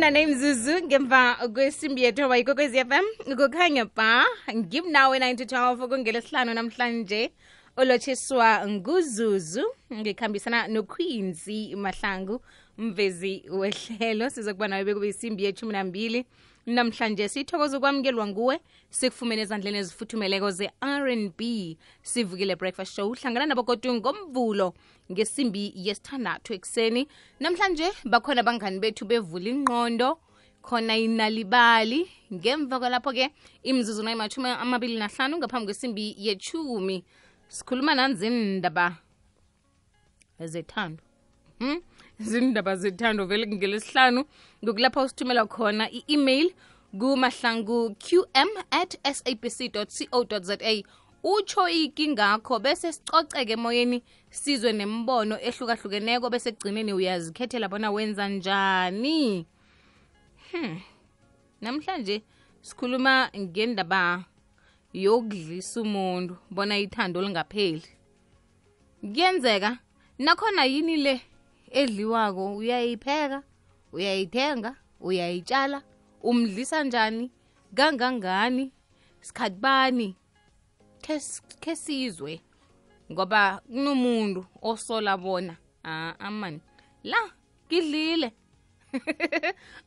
name Zuzu ngemva kwesimbi yethu bayikokwezi FM ukukhanya ba give nawe 9 to 12 kungelesihlanu namhlanje olotshiswa nguzuzu ngikhambisana noQueenzy Mahlangu mvezi wehlelo sizokuba nawe bekube isimbi yethu 12 namhlanje sithokoza ukwamukelwa nguwe sikufumene ezandleni ezifuthumeleko ze-R&B sivukile breakfast show hlangana nabogodu ngomvulo ngesimbi yesithandathu ekseni namhlanje bakhona abangani bethu bevula ingqondo khona inalibali ngemva kwalapho ke imzuzu nayimathumi 25 ngaphambi kwesimbi ye-10 sikhuluma nanzindaba zethando zindaba zethando vele ngelesihlanu ngokulapha usithumela khona i-email kumahlangu.qm@sabc.co.za utsho ikingakho bese sicoceke emoyeni sizwe nembono ehlukahlukeneko bese kugcineni uyazikhethela bona wenza njani. Namhlanje sikhuluma ngendaba yokudlisa umuntu bona ithando lingapheli. Kuyenzeka nakhona yini le edliwako uyayipheka uyayithenga uyayitshala umdlisa njani kangangani sikhathi bani ke sizwe ngoba kunomuntu osola bona amani la kidlile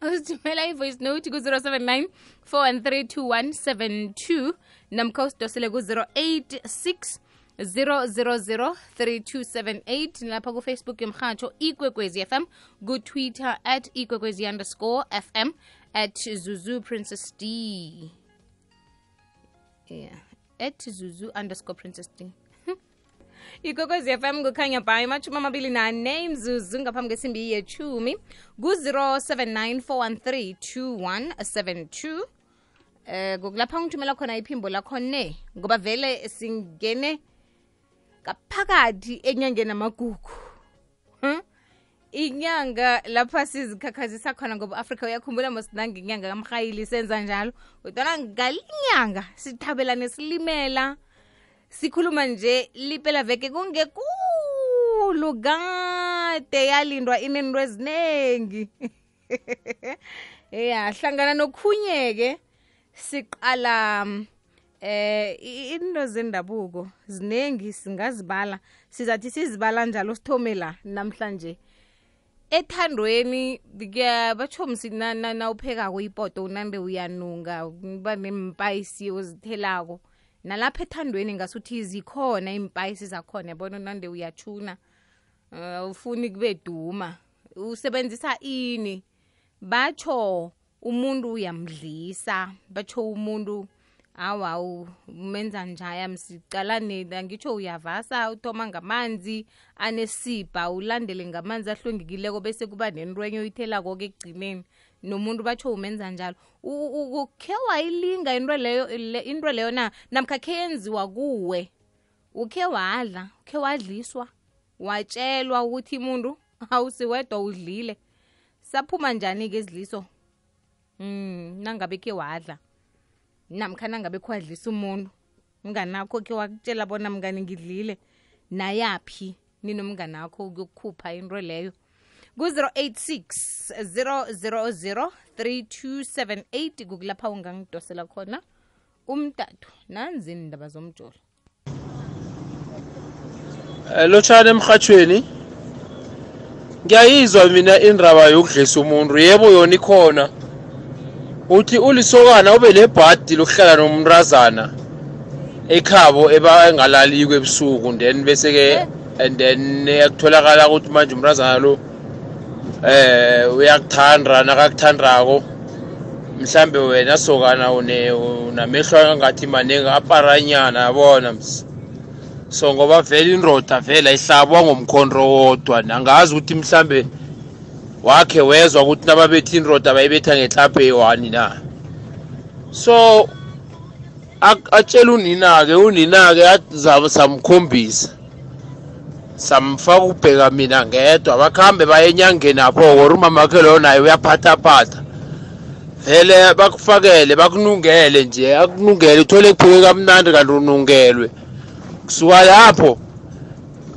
usithumela i-voice note ku-079 4132172 namkhawusidosele ku-086 0003278 lapha ku-Facebook yomhatsho ikwekwezi FM ku-Twitter @ikwekwezi_FM @Zuzu Princess D @Zuzu_Princess D ikwekwezi FM kukhanya bhayi machuma 24 imzuzu ngaphambi kwesimbi ye-10 ku-079 kokulapha ngithumela khona iphimbo lakho ne ngoba vele singene kaphakathi enyangeni amagugu inyanga lapha sizikhakhazisa khona ngoba Africa uyakhumbula mosinanga inyanga kamrhayili senza njalo kodwa ngalinyanga sithabelane silimela sikhuluma nje liphela veke kungekulu kade yalindwa inento ezinengi hlangana nokhunyeke siqala into zendabuko zinengi singazibala sizathi sizibala njalo sithome la namhlanje ethandweni bathomsi na uphekako ipoto unande uyanunga uba nempayisi ozithelako nalapha ethandweni ngasuthi zikhona impayisi zakhona yabona unande uyachuna ufuni kube duma usebenzisa ini batsho umuntu uyamdlisa batsho umuntu awu umenza njaya msicalane ngitsho uyavasa uthoma ngamanzi anesibha ulandele ngamanzi ahlwengekileko bese kuba nenrwenyo uyithelako ke egcineni nomuntu batsho umenza njalo ukhe wayilinga into leyo na namkha khe yenziwa kuwe ukhe wadla ukhe wadliswa watshelwa ukuthi umuntu awusiwedwa udlile saphuma njani ke izidliso nangabe ke wadla namkhana ngabe khwadlisa umuntu mnganakho ke wakutshela bona mngani ngidlile nayaphi ninomnganakho ukukhupha into leyo ku-086 0003278 kukulapha ungangidosela khona umtatu nanzi indaba zomjolo lotshana emhathweni ngiyayizwa mina indaba yokudlisa umuntu yebo yona ikhona uthi ulisokana ube lebhadi lokuhlala nomrazana ekhabo engalali kwebusuku then bese ke and then yakutholakala ukuthi manje umrazana lo uyakuthanda nakakuthandako mhlambe wena sokana unamehlo angathi manengi aparanyana yabona so ngoba vele indoda vele ayihlabwa ngomkhondro wodwa nangazi ukuthi mhlambe wakhe wezwa ukuthi nababethi indoda bayibetha ngehlaphe eyi-1 na so atshela unina-ke samkhombisa samfaka ukubheka mina ngedwa bakhambe baye enyangeni apho or umamakhe loyo naye uyaphathaphatha vele bakufakele bakunungele nje akunungele uthole kupheke kamnandi kanti unungelwe kusuka lapho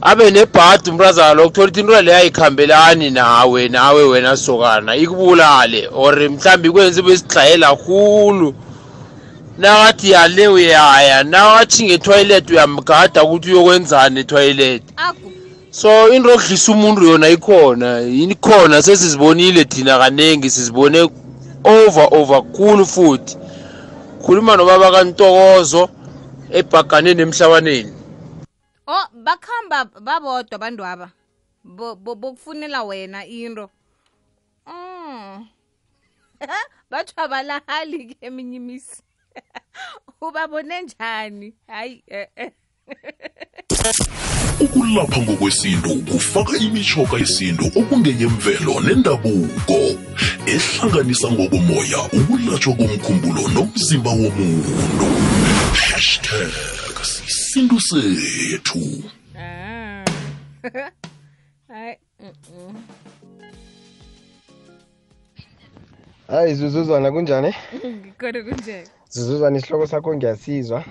abe nebhadi umrazana lokuthola ukuthi into leyo ayikhambelani nawe wena sokana ikubulale or mhlambi kwenza besidlayela khulu nawathi yale uyaya nawathi ngetoilet uyamgada ukuthi uyokwenzani etoilet so into okudlisa umuntu yona ikhona sesizibonile thina kanengi sizibone over khulu futhi khuluma nobaba kaNtokozo ebhaganeni emhlabaneni bakhamba babodwa abantu aba bokufunela wena into bathi abalahali ke eminye imisi ubabone njani hayi Ukulapha ngokwesintu kufaka imitjhoga yesintu okungeyemvelo nendabuko ehlanganisa ngokomoya ukulatshwa komkhumbulo nomzimba womuntu. #isintu sethu. Hayi Zuzuzwana kunjani? Kodwa kunjani? Zuzuzwana isihloko sakho ngiyasizwa.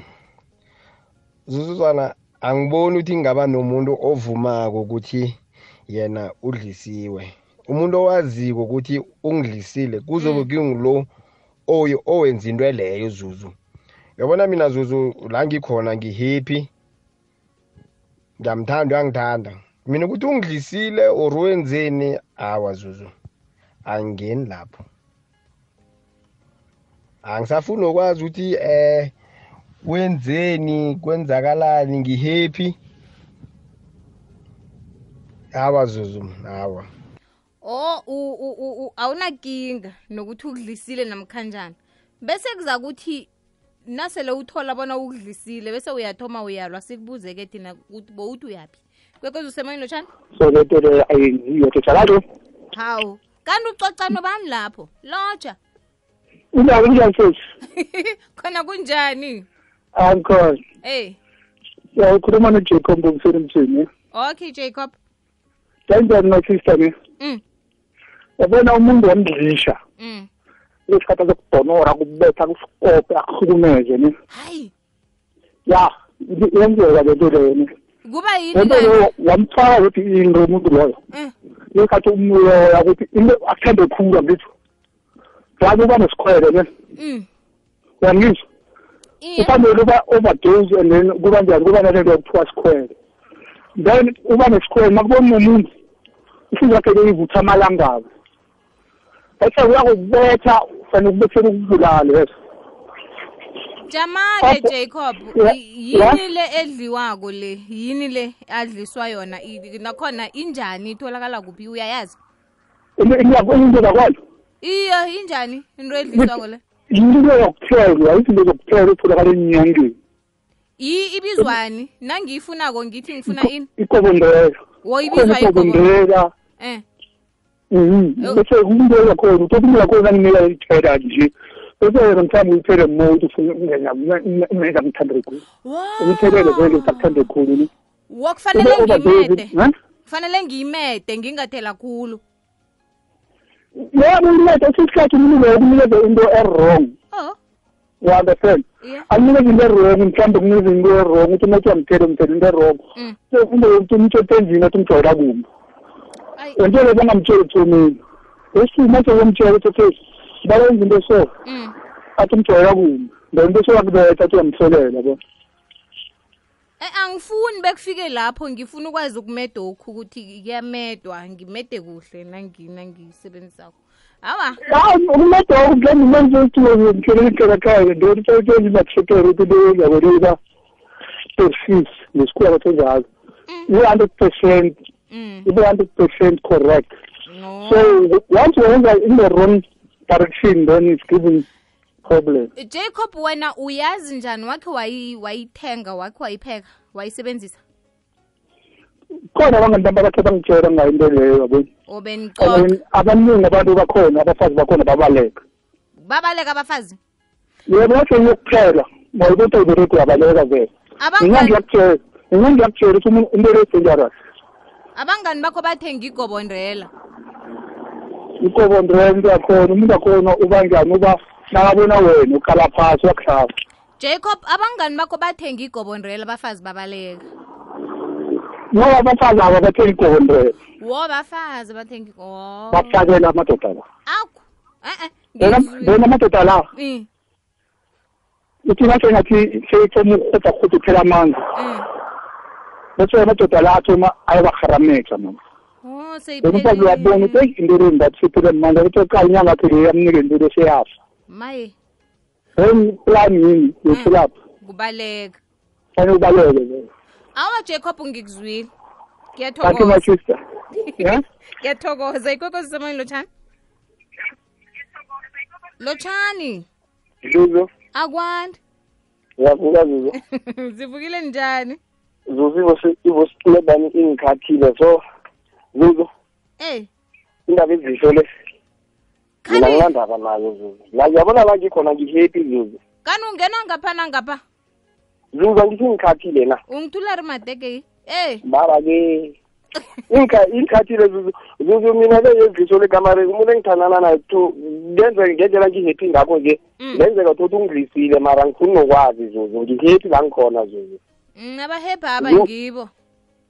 Zuzuzwana angiboni ukuthi ngaba nomuntu ovumako ukuthi yena udlisiwe. Umuntu owaziko ukuthi ungidlisile kuzobe kungilo owenza into leyo Zuzu. Yabona mina Zuzu la ngikhona ngihappy. Ngiyamthanda uyangithanda. Mina ukuthi ungidlisile or wenzeni awa Zuzu. Angeni lapho. Angisafuni ukwazi ukuthi wenzeni kwenzakalani ngihappy. Awa Zuzu awa. Awunakinga nokuthi ukudlisile namkhanjani. Bese kuza kuthi nasele uthola bona ukudlisile bese uyathoma uyalwa sikubuze ke thina ukuthi bowuthi uyapi. Kwekwezi usemoyeni lotshani? So letele ayiyothethalalo. Hawu, kanti ucoca nobani lapho? Lotsha. Kunjani futhi? Khona kunjani? Uncle. Ya ukhuluma noJacob ngomsebenzi. Okay Jacob. Kanjani no sister ni? Yabona umuntu wamdlisha. Lesikhathi sokudonora kubetha kuskope akhulumeze ni. Hayi. Ya, yenzeka le nto leyo ni. Kuba yini na? Wamfaka ukuthi into umuntu loyo. Lesikhathi umuya ukuthi into athande khulu ngithi. Yazi uba nesikhwele ne. Yangizwa. Ufanele uba overdose and then kuba njani kuba nalento yokuthiwa sikhwele. Then uba nesikhwele makubona umuntu isizwe yakhe leyivutha amalangabo. Bese uyakubetha fanele ukubethela ukubulala leso. Jamake Jacob, yini le edliwako le? Yini le adliswa yona? Nakhona injani itholakala kuphi uyayazi? Into zakwalo. Iyo injani into edliswako le? Into yokuthelwa, izinto zokuthelwa etholakala enyangeni. Ibizwani? Nangiyifunako ngithi ngifuna ini? Ikobondela. Woyibizwa ikobondela. Bese umuntu yakhona umuntu yakhona nginika ithela nje. Bese yena mthambi uthele mode ufuna ukungena umenza mthande khulu. Umthelele vele ukuthande khulu ni. Wokufanele ngimede. Kufanele ngimede ngingathela khulu. Yebo umede isikhathi umuntu ukunikeza into wrong. You understand? Akunikeza into wrong mthambi ukunikeza into wrong uthi umuntu amthele into wrong. So umuntu uthenzini athi umjora kumbi. Entshele bangamtsheli thomini. Esimo somtshela ukuthi bayenza into so. Athi umjora kumbi. Lento so yakubetha athi uyamhlolela yabo. Angifuni bekufike lapho ngifuna ukwazi ukumeda okhu ukuthi kuyamedwa ngimede kuhle nangisebenzisako. Hawa. Umeda ukugenda manje uthi ngikhelekela ekhaya nto ukuthi imathekere ukuthi uyabona persist nesikhwela senjalo. 100% 100% correct. No. So once you enter in the wrong direction, then it's giving problem. Jacob, wena uyazi njani wakhe wayithenga wakhe wayipheka wayisebenzisa? Khona abantu bakhe bangitshela ngayo into leyo yabo. Obenixoxa. Abaningi abantu bakhona abafazi bakhona babaleka. Babaleka abafazi? Yebo wathi ukuphela, ngokuthi ubereke yabaleka vele. Ngiyakutshela ukuthi into leyo abangani bakho bathenga igobondrela. Igobondrela yakhona umuntu akhona ubanjani uba nakabona wena ukhala phasi wakuhlaba. Jacob, abangani bakho bathenga igobondrela abafazi babaleka. ngoba abafazi aba bathenga igondre bafazi bathenga bafakela amadoda la akho bona amadoda la uthi ngathi seyithoma ukhuthi phela amandla bese amadoda la athoma ayabaharamexa mama umfazi uyabona ukuthi into le ngathi siphile manje ukuthi xa inyanga phela yamnike into le seyafa maye plan yini yokulapha kubaleka fanele ubaleke awa Jacob ngikuzwile kanti my sister ngiyathokoza ikwekwezi semani Lotshani Zuzu akwandi yavuka Zuzu zivukile njani Zuzu ivosilebani ingikhathile so Zuzu indaba ezisho le mina ngilandaba nayo Zuzu la yabona la ngikhona ngihappy Zuzu kani ungena ngapha Zuzu ngithi ngikhathile na ungithula rimadeke baba ke ingikhathile Zuzu mina le yezisho le kamare umuntu engithandana naye to ngenze ngendlela ngihappy ngakho nje ngenzeka ukuthi ungidlisile mara ngifuna nokwazi Zuzu ngihappy la ngikhona Zuzu abahappy abangibo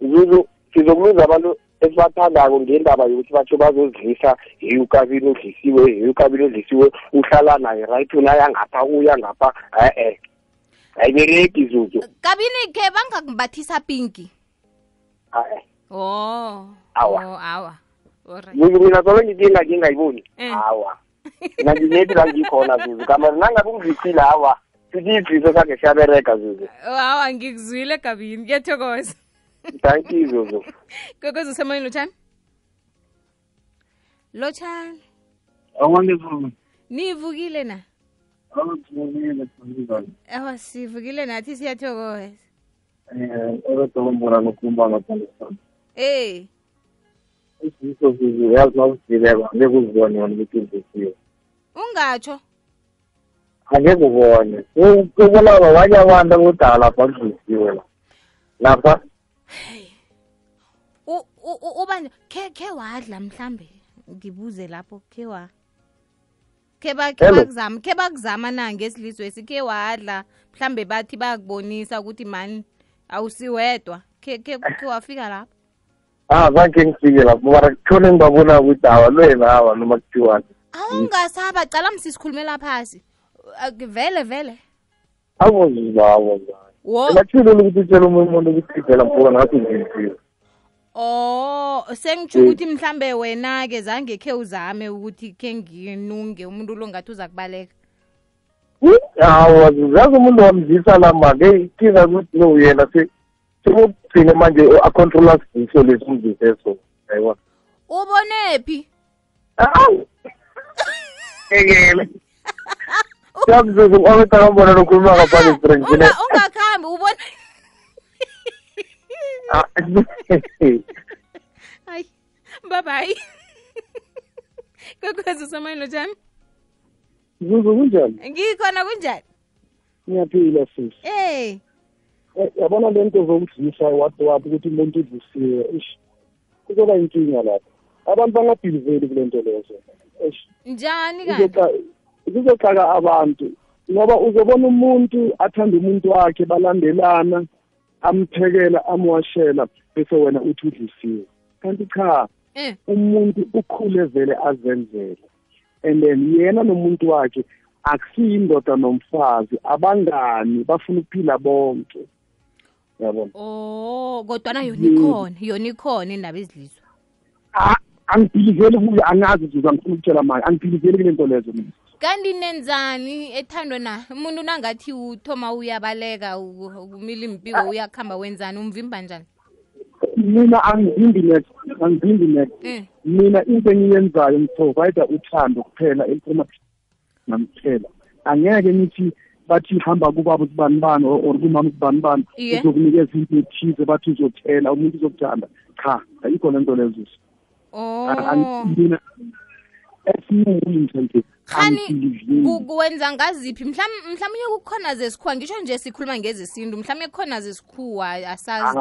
Zuzu sizokuluza abantu esibathandako ngendaba yokuthi batsho bazozidlisa ukabili odlisiwe uhlala naye right unaya ngapha uya ngapha ayibereki Zuzu kabini ke bangakumbathisa pinki awa Zuzu mina solo ngingayiboni awa mina nginethi la ngikhona Zuzu kamari nangabe ungidlisile awa sithi idliso sakhe siyabereka Zuzu awa ngikuzwile kabini ngiyathokoza thank you Zuzu kokozo semoyeni Lotshani awonderful nivukile na sivukile nathi siyathokoza otombona nokumba ngaphandle isiso Zuzu yazi nawusileka ngekuzibone wona ukuthi ngisiwe ungatsho angeke ubone ukubona abanye abantu abodala lapha ngisiwe lapha ubani ke wadla mhlambe ngibuze lapho ke bakuzama na ngesilizwe esikhe wadla mhlambe bathi bayakubonisa ukuthi mani awusiwedwa ke wafika lapho zange ngifike lapho mara kuthole ngibabona ukuthi awalwena noma kuthiwani awungasaba cala msisikhulumela phasi vele awuzibawo ngathile ukuthi utshela umuntu ukuthi phela mfuna ngathi ngimfile sengitsho ukuthi mhlambe wena ke zange khe uzame ukuthi ke nginunge umuntu lo ngathi uza kubaleka zazi umuntu wamzisa lama ke kinga ukuthi no yena sekugcine manje a-controla siso lesi umziseso ayibona ubonephi ekele Yakuzuzu awetangambona nokhuluma ngaphandle strengthine ungakhambi ubona hayi bye kokwezi semoyeni Lotshani Zuzu kunjani ngikhona kunjani ngiyaphila sisi yabona lento zokudlisa wathi ukuthi umuntu udlisiwe kuzoba inkinga lapha abantu bangabhiliveli kule nto lezo njani kanti kuzoxaka abantu ngoba uzobona umuntu athanda umuntu wakhe balandelana amphekela amwashela bese wena uthi udlisiwe kanti cha umuntu ukhule vele azenzele and then yena nomuntu wakhe akusiyindoda nomfazi abangani bafuna ukuphila bonke yabona kodwa yona ikhona indaba ezilizwe angibhiliveli kuyo angazi Zuzu angifuna ukutshela manje angibhiliveli kule nto lezo mina kanti nenzani ethandwe na umuntu nangathi uthoma uyabaleka umila impiko uyakhamba wenzani umvimba njani mina angivimbi next mina into engiyenzayo ngiprovide uthando kuphela eliphuma namphela angeke ngithi bathi hamba kubaba usibani or kumama usibani uzokunikeza into ethize bathi uzothela umuntu uzokuthanda cha ayikho lento lezo mina esinuyinto nje khani kuwenza ngaziphi mhlawumnye kukhona zesikhuwa ngisho nje sikhuluma ngezesintu mhlawumnye kukhona zesikhuwa asazi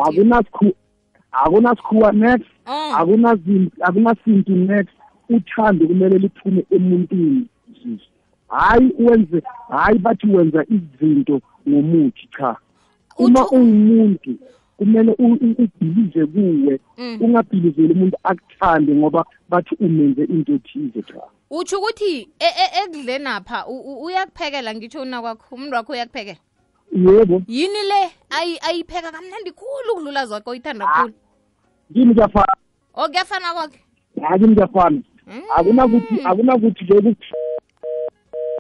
akunasikhuwa next akunasintu next uthando kumele liphume emuntwini hayi bathi wenza izinto ngomuthi cha uma ungumuntu kumele ubhilize kuwe ungabhilizeli umuntu akuthande ngoba bathi umenze into ethize cha. Utsho ukuthi ekudleni apha uyakuphekela ngitsho unakwakho umuntu wakho uyakuphekela? Yebo. Yini le ayipheka kamnandi khulu ukudlula zakho oyithanda khulu? Kimi kuyafana. Kuyafana kwakhe? Kimi kuyafana. Akunakuthi nje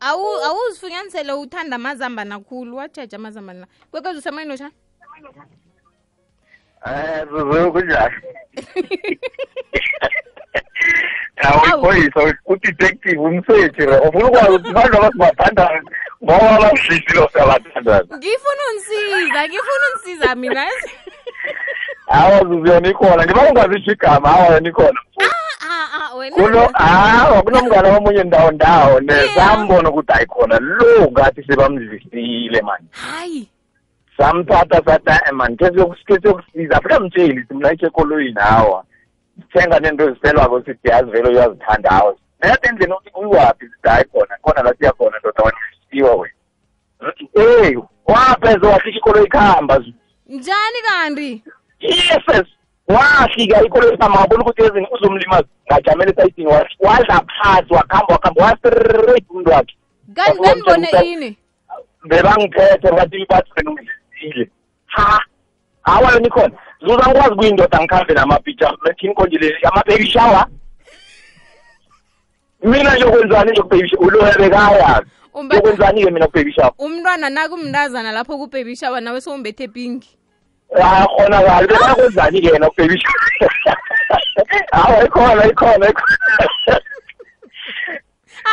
awuzifunyanisele uthanda amazamba nakhulu wajeja amazamba la kwekwezi usemayini lotshani? Zuzu kunjani? Awuyiphoyisa udetective umsethi ufuna ukwazi ukuthi abantu abasibathanda ngoba basidlisile siyabathanda. Ngifuna unisiza mina. Awa Zuzu yona ikhona ngiba ungazisho igama awa yona ikhona. Wena kunomngane omunye ndawo nesambona ukuthi ayikhona lo ngathi sebamdlisile manje. Hayi. Samthatha sathi man kesokusiza afika mtsheli simlayishe ekoloyini hawa. Thenga nento eziselwako sithi yazi vele uyazithanda hawa. Nayathi endlini uthi uyiwaphi sithi hayi khona la siyakhona ndoda wanisiwa wena. Wapheze wahlika ikoloyi ikhamba. Njani kanti? Yes. Wahlika ikoloyi ikhamba wabona ukuthi ezini uzomlimaza ngajamele esayitini wadla phansi wakhamba wastraight umuntu wakhe. Kanti nganibone ini? Bebangiphethe bathi bathi benungizile. Hawa yona ikhona. Zuza ngikwazi kuyindoda ngikhambe namapicture lethi inkonjile ama-baby shower. Mina nje kwenzani nje ku-baby shower ulohe kaya. Ukwenzani ke mina ku-baby shower? Umntwana nakumndazana lapho ku-baby shower nawe sowumbethe pinki. Khona kahle bekwenzani ke yena ku-baby shower? Hawa ikhona.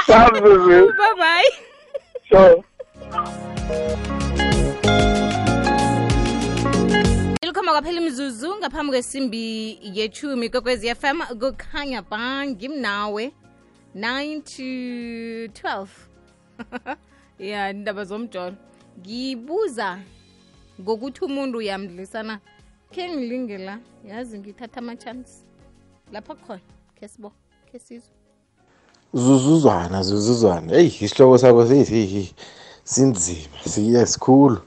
Sabuzu. Bye bye. So Ilkhoma kwaphela imizuzu ngaphambi kwesimbi ye-10 Kokwezi FM kukhanya ba ngimnawe 9 to 12. Yeah, indaba zomjolo. Ngibuza ngokuthi umuntu uyamdlisana. Ke ngilingela yazi ngithatha ama chance. Lapha khona kesibo kesizwe. Zuzuzwana. Hey, isihloko sakho sinzima siyesikhulu.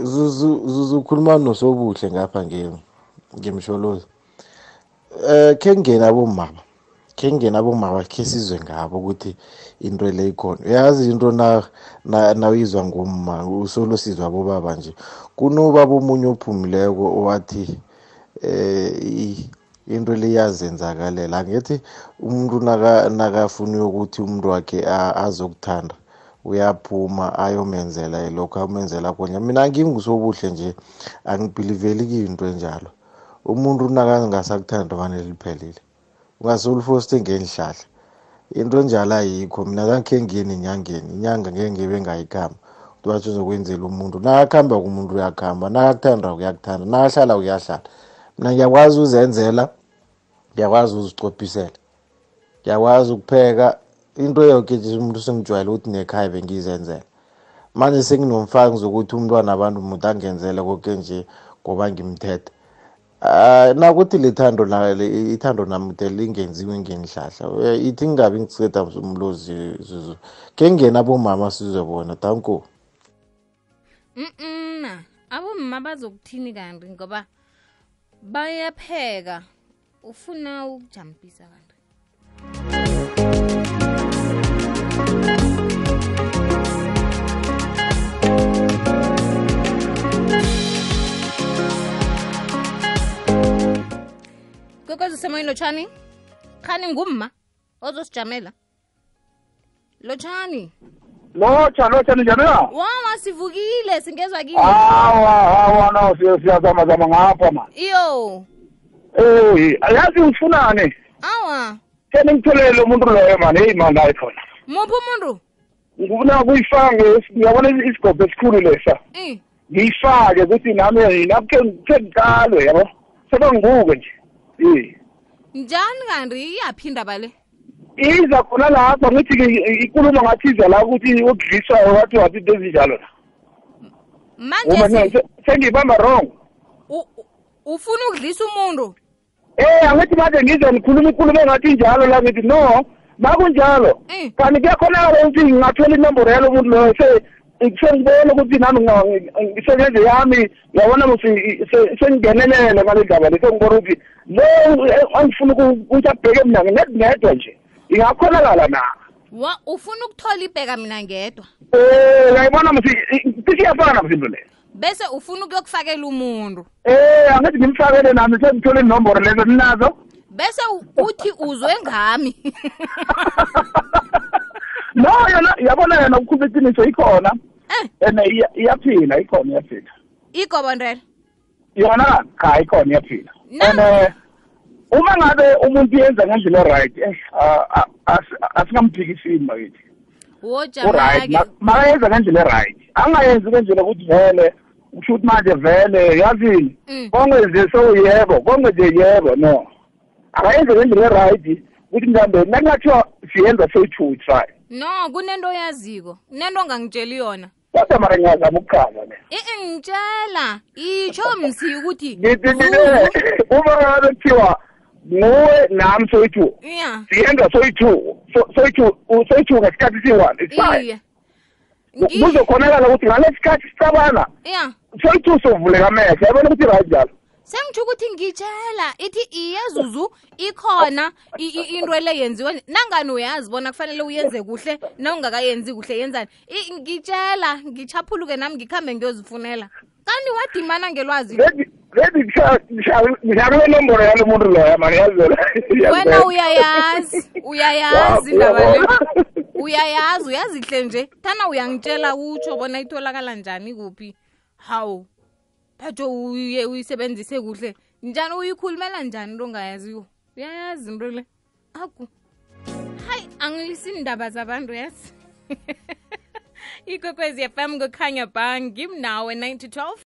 Zuzu khuluma nosobuhle ngapha ngemsholozi. Kengena bomama ke sizwe ngabo ukuthi into le ikhona. Uyazi into nawizwa ngumma usolo sizwa bobaba nje. Kunobaba omunye ophumileko owathi into le yazenzakalela ngithi umuntu nakafuna ukuthi umuntu wakhe azokuthanda uyaphuma ayomenzela lokho amenzela khona. Mina ngingusobuhle nje angibhiliveli into enjalo. Umuntu nakangasakuthanda fanele liphelile. Ungasolfoste ngenhlahla. Into enjalo ayikho. Mina ngakhe ngiyeni inyanga ngeke ngibe ngayikhamba. Uthi uzokwenzela umuntu. Nakakhamba kumuntu uyakhamba, nakakuthanda uyakuthanda, nakahlala uyahlala. Mina ngiyakwazi uzenzela, ngiyakwazi uzicophisela. Ngiyakwazi ukupheka. Into yonke nje umuntu sengijwayele ukuthi nekhaya bengizenzela. Manje senginomfaki zokuthi umntwana abantu umuntu angenzele konke nje ngoba ngimthethe. Nakuthi ithando nami lingenziwe ngenhlahla. Ithi ngingabi ngiceda umlozi Zuzu. Ke ngena bomama sizwe bona danko. Abomama bazokuthini kanti ngoba bayapheka ufuna ukujampisa kanti. Kokwezi usemoyini Lotshani? Khani ngumma ozosijamela. Lotshani. Lotshani njani na? Wawa sivukile singezwa kini. No siyazama ngapha man. Iyo. Ayazi ufunane. Awa. Kene ngitholele umuntu loyo man, hey man la ikhona. Muphi umuntu? Ngifuna kuyifanga ngiyabona isigobhe esikhulu lesa. Ngiyifake ukuthi nami naphe ngiqalwe yabo. Sebanguke nje. Njani kanti iyaphinda bale? Iza khona lapha ngithi ikhuluma ngathi iza la ukuthi ukudliswa wathi into ezinjalo. Manje sengibamba wrong. Ufuna ukudlisa umuntu? Angithi manje ngize ngikhuluma engathi njalo la ngithi no, makunjalo. Kanti kuyakhona ukuthi ngingathola inombolo yalo muntu loyo sengibona ukuthi nami ngisebenze yami ngiyabona ukuthi sengingenelele ngale ndaba le sengibona ukuthi lo angifuna ukuthi abheke mina ngedwa nje ingakhonakala na ufuna ukuthola ibheka mina ngedwa ngiyabona mthi siyafana msindo le bese ufuna ukuyokufakela umuntu angithi ngimfakele nami sengithole inombolo lezo ninazo bese uthi uzwe ngami no yabona yena ukukhuluma iqiniso ikhona iyaphila ikhona igobondela yona cha ikhona iyaphila uma ngabe umuntu yenza ngendlela right asingamphikisini bakithi wojamake makayenza ngendlela right angayenzi ngendlela ukuthi vele usho ukuthi manje vele yazini kongenze yebo kongenze yebo no akayenze ngendlela right ukuthi mhlawumbe nakungathiwa siyenza soyi-2 try no kunento oyaziko kunento ongangitsheli yona kodwa mara ngiyazama ukuchaza le ngitshela itsho msi ukuthi uma ngabe kuthiwa nguwe nami soyi-2 siyenza soyi-2 ngesikhathi siyi-1 it's fine kuzokhonakala ukuthi ngale sikhathi sicabana soyi-2 sovuleka amehlo yabona ukuthi right njalo sengitsho ukuthi ngitshela ithi iyezuzu ikhona into le yenziwe nangani uyazi bona kufanele uyenze kuhle nawungakayenzi kuhle yenzani ngitshela ngichaphuluke nami ngikhambe ngiyozifunela kanti wadimana ngelwazi ngishakule nombolo yalo muntu loya mani yazela wena uyayazi ndaba le uyazi hle nje thana uyangitshela utsho bona itholakala njani kuphi hawu thatho uyisebenzise kuhle njani uyikhulumela njani into ongayaziyo uyayazi into le aku hayi angilisini indaba zabantu yazi Ikwekwezi FM kukhanya ba ngimnawe 9 to 12